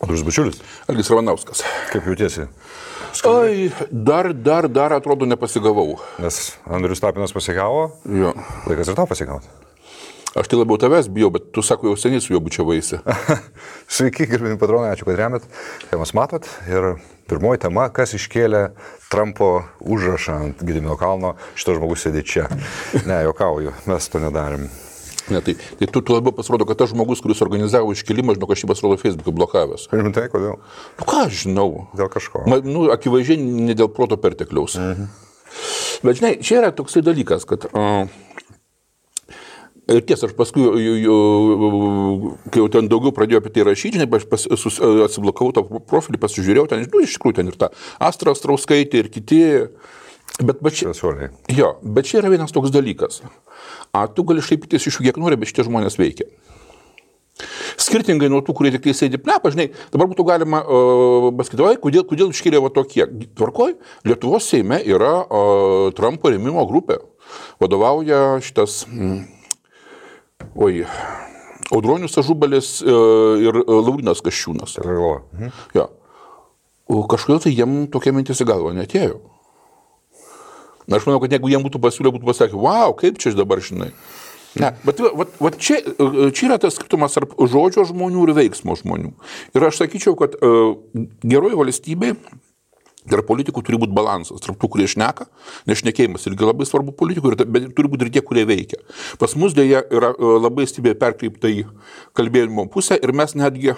Andrius Bučiulis. Algis Ramanauskas. Kaip jautiesi? Ai, dar atrodo nepasigavau. Nes Andrius Tapinas pasigavo, Jo. laikas ir tau pasigauti. Aš tai labiau tavęs bijau, bet tu sako, jau seniai su juo bučiavaisi. Sveiki, gerbimi patronai, ačiū, kad remiat. Temas matot. Ir pirmoji tema, kas iškėlė Trumpo užrašą ant Gedimino kalno, šitas žmogus sėdė čia. Ne, juokauju, mes to nedarėm. Ne, tai tu labiau pasirodo, kad tas žmogus, kuris organizavo iškėlimą, žinau, aš jį pasirodo Facebook'e blokavęs. Rimtai, kodėl? Nu ką aš žinau? Dėl kažko. Akivaizdžiai ne dėl proto pertekliaus. Bet žinai, čia yra toksai dalykas, kad... Ir tiesa, aš paskui, kai jau ten daugiau pradėjau apie tai rašyti, žinai, aš atsiblokavau tą profilį, pasižiūrėjau, ten, iš tikrųjų, ten ir ta Astra Astrauskaitė ir kiti. Bet čia yra vienas toks dalykas. Tu gali šaipytis iš jų kiek nori, bet šitie žmonės veikia. Skirtingai nuo tų, kurie tik tai sėdi plepą, žinai, dabar būtų galima pasakyti, kodėl iškėlė va tokie. Tvarkoj, Lietuvos Seime yra Trumpo rėmimo grupė. Vadovauja šitas... Audronius Ažubalis ir Laurynas Kasčiūnas. Ja. Kažkodėl tai jiem tokia mintis į galvą neatėjo. Na, aš manau, kad jeigu jiem būtų pasiūlę, būtų pasakę, wow, kaip čia dabar žinai. Ne, bet čia yra tas skirtumas tarp žodžio žmonių ir veiksmo žmonių. Ir aš sakyčiau, kad geroji valstybė tarp politikų turi būti balansas, tarp tų, kurie šneka, nes šnekėjimas irgi labai svarbu politikų, bet turi būti ir tie, kurie veikia. Pas mus dėja yra labai stipriai perkreipta į kalbėjimo pusę ir mes netgi,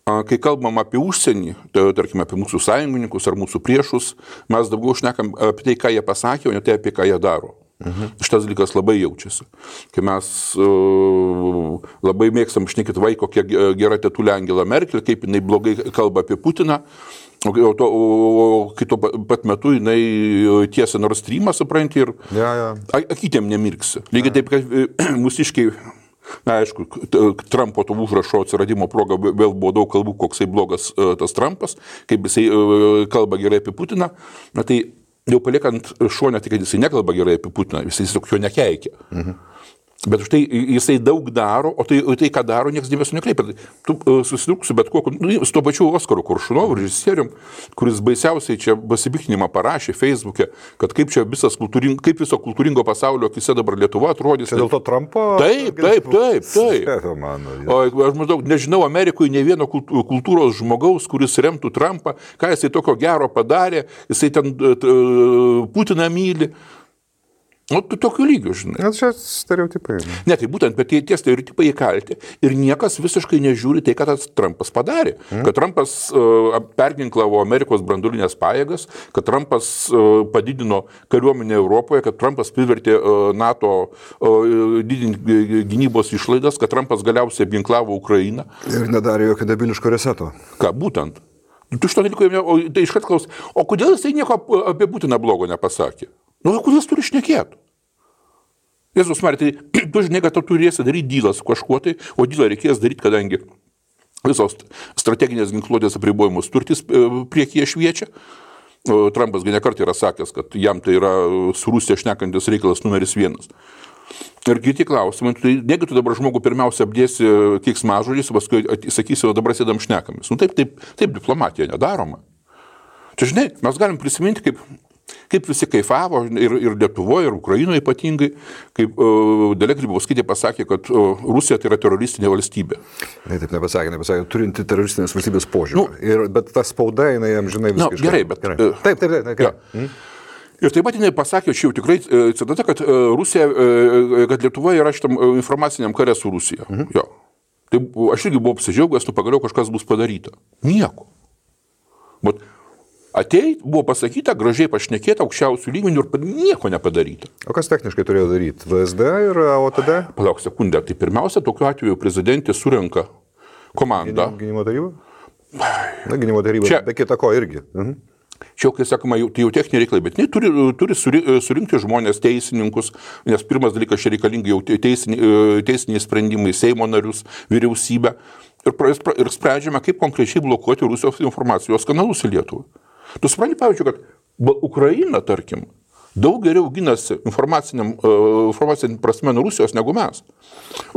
kai kalbam apie užsienį, tai tarkime apie mūsų sąjungininkus ar mūsų priešus, mes daugiau šnekam apie tai, ką jie pasakė, o ne tai, apie ką jie daro. Šitas dalykas labai jaučiasi. Kai mes labai mėgstam šnekėti vai, kokia gera tetulė Angela Merkel, kaip jinai blogai kalba apie Putiną, o kito pat metu jinai tiesia Nord Streamą, supranti, ir akytėm nemirksi. Lygiai taip, kad mūsiškiai, na, aišku, Trumpo to užrašo atsiradimo proga vėl buvo daug kalbų, koksai blogas tas Trumpas, kaip jisai kalba gerai apie Putiną, na tai jau paliekant šonę, tik kad jisai nekalba gerai apie Putiną, jisai tiesiog jo nekeikia. Bet už tai jisai daug daro, o tai ką daro, niekas dėmesio nekreipia. Tu susidurk su bet kokiu, su tuo pačiu Oskaru Koršunovu, režisierium, kuris baisiausiai čia pasipiktinimą parašė Facebook'e, kad kaip čia viso kultūringo pasaulio akise dabar Lietuva atrodys. Čia dėl to Trumpo? Taip. O aš maždaug nežinau Amerikoje ne vieno kultūros žmogaus, kuris remtų Trumpą, ką jisai tokio gero padarė, jisai ten Putiną myli. Nu, tu tokiu lygiu, žinai. Nes čia stereotipai. Ne, tai būtent, bet tie stereotipai įkalti ir niekas visiškai nežiūri tai, ką tas Trumpas padarė. Kad Trumpas perginklavo Amerikos branduolinės pajėgas, kad Trumpas padidino kariuomenę Europoje, kad Trumpas privertė NATO didinti gynybos išlaidas, kad Trumpas galiausiai apginklavo Ukrainą. Ir nedarė jokio debiliško reseto. Ką, būtent. Tu šito dalyko, tai iškart klaus, o kodėl jisai nieko apie Putiną blogo nepasakė? Nu, kodėl jis turi šnekėti? Jėzus Marija, tai tu žinai, kad tu turėsi daryti dylą su kažkuo tai, o dylą reikės daryti, kadangi visos strateginės ginkluotės apribojimus turtis priekyje šviečia. Trumpas nekart yra sakęs, kad jam tai yra su Rusija šnekantis reikalas numeris 1. Ir kiti klausimai, tai negi tu dabar žmogų pirmiausia apdėsi keiksmažodžiais, paskui sakysi, o dabar sėdam šnekamis. Nu, taip diplomatija nedaroma. Čia, žinai, mes galim prisiminti, kaip visi kaifavo ir Lietuvoje, ir Ukrainoje ypatingai, kaip Dalia Grybauskaitė pasakė, kad Rusija tai yra teroristinė valstybė. Ne, taip nepasakė, turinti teroristinės valstybės požiūrį. Bet ta spauda, jinai jam žinai visiškai. Gerai, bet... Taip. Ir taip pat jinai pasakė, čia jau tikrai citata, kad Lietuva yra šitam informaciniam kare su Rusija. Jo. Tai aš irgi buvau apsidžiaugęs, pagaliau kažkas bus padaryta. Nieko. Bet buvo pasakyta, gražiai pašnekėta, aukščiausių lygmenių ir nieko nepadaryta. O kas techniškai turėjo daryti? VSD ir OTD? Palauk sekundę. Tai pirmiausia, tokiu atveju prezidentė surenka komandą. Gynimo taryba? Na, gynimo taryba, čia, be kita ko irgi. Čia, kai sakoma, tai jau techniniai reikalai, bet turi surinkti žmonės, teisininkus, nes pirmas dalykas čia reikalingi jau teisiniai sprendimai, Seimo narius, vyriausybę ir sprendžiame, kaip konkrečiai blokuoti Rusijos informacijos kanalus į Lietuvą. Tu supranti, pavyzdžiui, kad Ukraina, tarkim, daug geriau ginasi informaciniam prasme nuo Rusijos negu mes.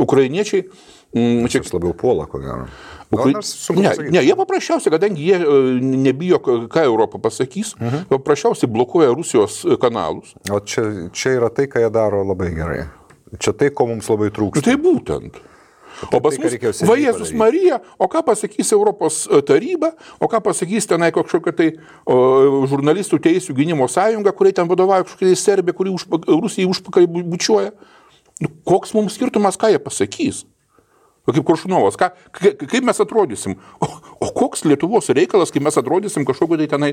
Ukrainiečiai Čia labiau puola, ko gero. Ne, jie paprasčiausiai, kadangi jie nebijo, ką Europą pasakys, paprasčiausiai blokuoja Rusijos kanalus. O čia yra tai, ką jie daro labai gerai. Čia tai, ko mums labai trūksta. Tai būtent. O pas mus, va Jėzus Marija, o ką pasakys Europos taryba, o ką pasakys tenai kažkokia tai žurnalistų teisių gynimo sąjunga, kuriai ten vadovauja kažkokia tai Serbija, kuri Rusijai užpakalį bučiuoja. Koks mums skirtumas, ką jie pasakys? Kaip Koršunovas, kaip mes atrodysim? O koks Lietuvos reikalas, kaip mes atrodysim kažkokio tai tenai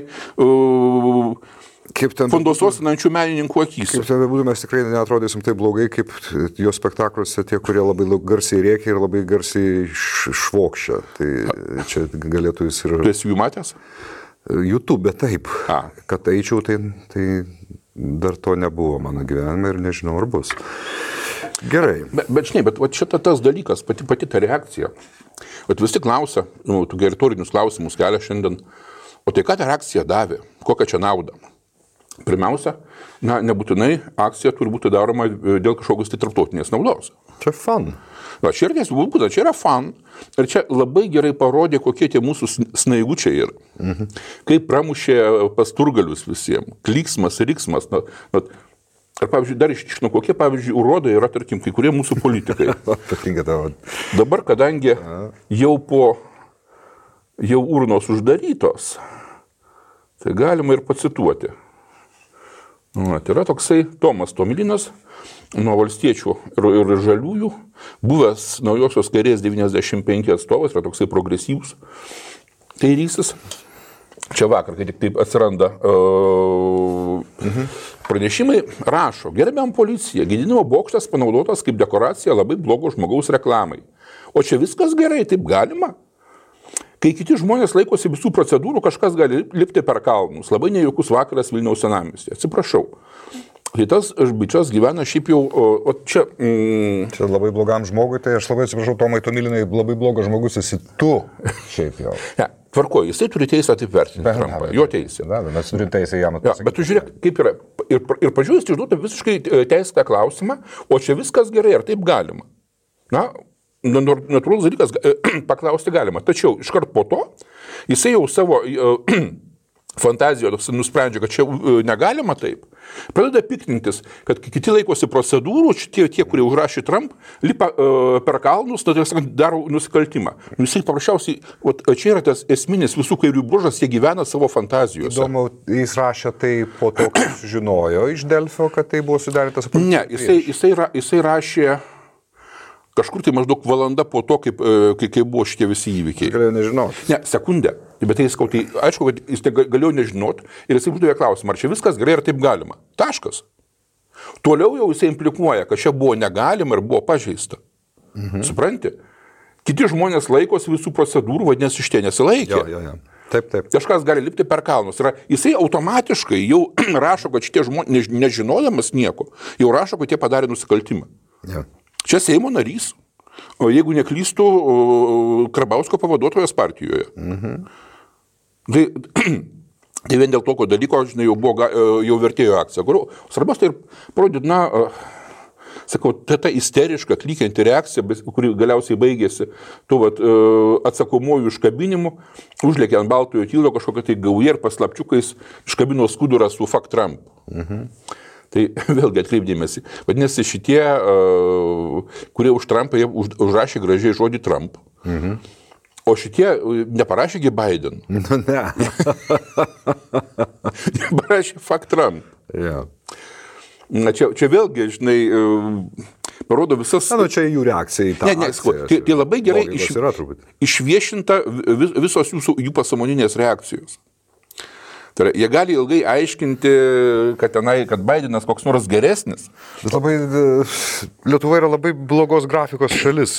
fondososinančių menininkų akys? Kaip ten bebūtų, mes tikrai neatrodysim taip blogai, kaip jo spektakliuose tie, kurie labai garsiai rėkia ir labai garsiai švokščia. Tai čia galėtų jis ir... Tu esi jų matęs? YouTube, taip. Kad eičiau, tai dar to nebuvo mano gyvenime ir nežinau, ar bus. Gerai. Bet žinai, bet šita tas dalykas, pati ta reakcija. Visi klausia, tu retorinius klausimus kelia šiandien, o tai ką ta reakcija davė? Kokią čia naudą? Pirmiausia, nebūtinai akcija turi būti daroma dėl kažkokios tai tarptautinės naudos. Čia fun. Čia yra fun. Ir čia labai gerai parodė, kokie tie mūsų snaigučiai yra. Kaip pramušė pasturgalius visiems. Klyksmas, riksmas. Ar, pavyzdžiui, dar ištiškinu, kokie, pavyzdžiui, urodai yra, tarkim, kai kurie mūsų politikai. Dabar, kadangi jau urnos uždarytos, tai galima ir pacituoti. Tai yra toksai Tomas Tomilinas, nuo valstiečių ir žaliųjų, buvęs naujosios kairės 95 atstovas, yra toksai progresyvus kairysis. Čia vakar, kai tik taip atsiranda pranešimai, rašo, gerbiam policija, Gedimino bokštas panaudotas kaip dekoracija labai blogo žmogaus reklamai. O čia viskas gerai, taip galima? Kai kiti žmonės laikosi visų procedūrų, kažkas gali lipti per kalnus. Labai nejaukus vakaras Vilniaus senamiestyje. Atsiprašau. Tai tas bičias gyvena šiaip jau, o čia... Čia labai blogam žmogui, tai aš labai atsiprašau, Tomai Tomilinai, labai blogas žmogus esi tu šiaip jau. Ne, tvarkoju, jisai turi teisę taip vertinti Trumpą, jo teisė. Mes turim teisę jam atsakyti. Bet tu žiūrėk, kaip yra. Ir pažiūrėjus, išduotų visiškai teisėtą klausimą, o čia viskas gerai, ar taip galima? Natūralus dalykas paklausti galima. Tačiau iškart po to, jisai jau savo fantazijoje nusprendžia, kad čia negalima taip. Pradeda piktintis, kad kiti laikosi procedūrų, tie, kurie užrašė Trump, lipa per kalnus, daro nusikaltimą. Jisai paprasčiausiai, čia yra tas esminis visų kairių bruožas, jie gyvena savo fantazijose. Įdomu, jis rašė tai po to, kai sužinojo iš Delfio, kad tai buvo sudarytas... Ne, jisai rašė kažkur tai maždaug valanda po to, kai buvo šitie visi įvykiai. Galėjau nežinoti. Ne, sekundę. Bet tai aišku, kad jis galėjo nežinoti ir jisai uždavė klausimą, ar čia viskas gerai, ar taip galima. Taškas. Toliau jau jisai implikuoja, kad čia buvo negalima ir buvo pažeista. Supranti? Kiti žmonės laikosi visų procedūrų, vadinasi, šitie nesilaikė. Jo. Taip. Kažkas gali lipti per kalnus. Jisai automatiškai jau rašo, kad šitie žmonės, nežinodamas nieko, jau rašo, kad jie padarė nusikaltimą. Jo. Čia Seimo narys, o jeigu neklystų, Karbauskio pavaduotojas partijoje. Tai vien dėl tokio dalyko, žinai, jau vertėjo akcija. Svarbiausia, tai parodyti, sakau, ta isteriška, klykianti reakcija, kuri galiausiai baigėsi atsakomojų iškabinimu, užlėkė ant baltojo tylo kažkokia tai gauja ir paslapčiukais iškabino skudurą su Fuck Trump. Tai vėlgi atkreipdėmėsi. Vadinasi, šitie, kurie už Trumpą, jie užrašė gražiai žodį Trump. O šitie neparašėgi Biden. Ne. Parašė Fuck Trump. Yeah. Čia vėlgi, žinai, parodo visas... Čia jų reakcija į tą akciją. Tai labai gerai išviešinta visos jų pasąmoninės reakcijos. Tai jie gali ilgai aiškinti, kad Bidenas koks nors geresnis. Lietuva yra labai blogos grafikos šalis.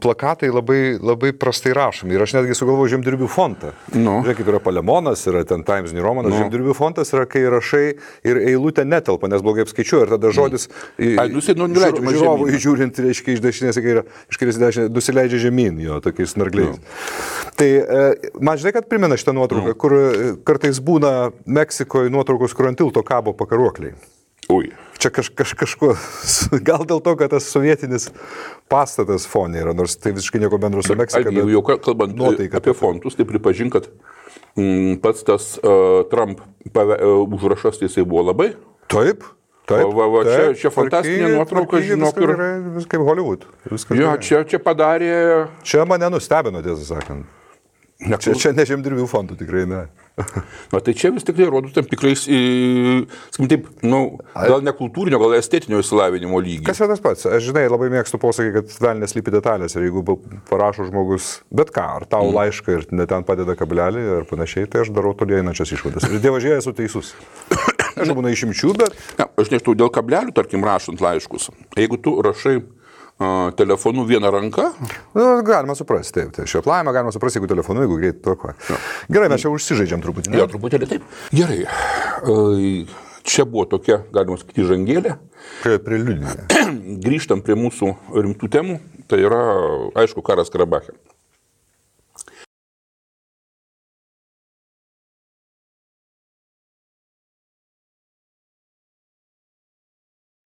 Plakatai labai prastai rašomi. Ir aš netgi sugalvoju Žemdirbių fontą. Žiūrėk, kaip yra Palemonas, yra ten Times New Romanas. Žemdirbių fontas yra, kai rašai ir eilutė netelpa, nes blogai apskaičiuoja. Ir tada žodis žiūrovui žiūrint, reiškia, iš dešinės į kairę, iš kairės į dešinę, nusileidžia žemyn, jo, tokiais snargliais. Tai man žinai, kad primena šitą nuotrauką, kur kartais būna Meksikoje nuotraukos, kur ant tilto kabo pakaruokliai. Ui. čia kažkuo, gal dėl to, kad tas sovietinis pastatas fonė yra, nors tai visiškai nieko bendro su Meksika. Jau kalbant apie fontus, tai pripažink, kad pats tas Trump užrašas, tai jisai buvo labai. Taip. Čia fantastinė nuotrauka, žinok. Viskas kaip Hollywood. Jo, čia padarė... Čia mane nustebino, tiesą sakant. Čia ne žemdirbių fondų tikrai ne. Tai čia vis tikrai rodo tam tikrais, sakykim taip, gal ne kultūrinio, gal estetinio išsilavinimo lygį. Kas yra tas pats? Aš žinai, labai mėgstu posakį, kad velnės slypi detalės ir jeigu parašo žmogus bet ką, ar tau laišką ir ne ten padeda kablelį ir panašiai, tai aš darau toli einančias išvadas. Ir dievažiai esu teisus. Aš būna išimčių, bet... Aš nežinau, dėl kablelių, tarkim, rašant laiškus, jeigu tu rašai telefonu vieną ranką. Galima suprasti, taip. Šioplajame galima suprasti, jeigu telefonu, jeigu greit tvarkoja. Gerai, mes čia užsižaidžiam truputį. Jo, truputėlį taip. Gerai. Čia buvo tokia, galima sakyti, žangėlė. Preliudinė. Grįžtam prie mūsų rimtų temų. Tai yra, aišku, karas Karabache.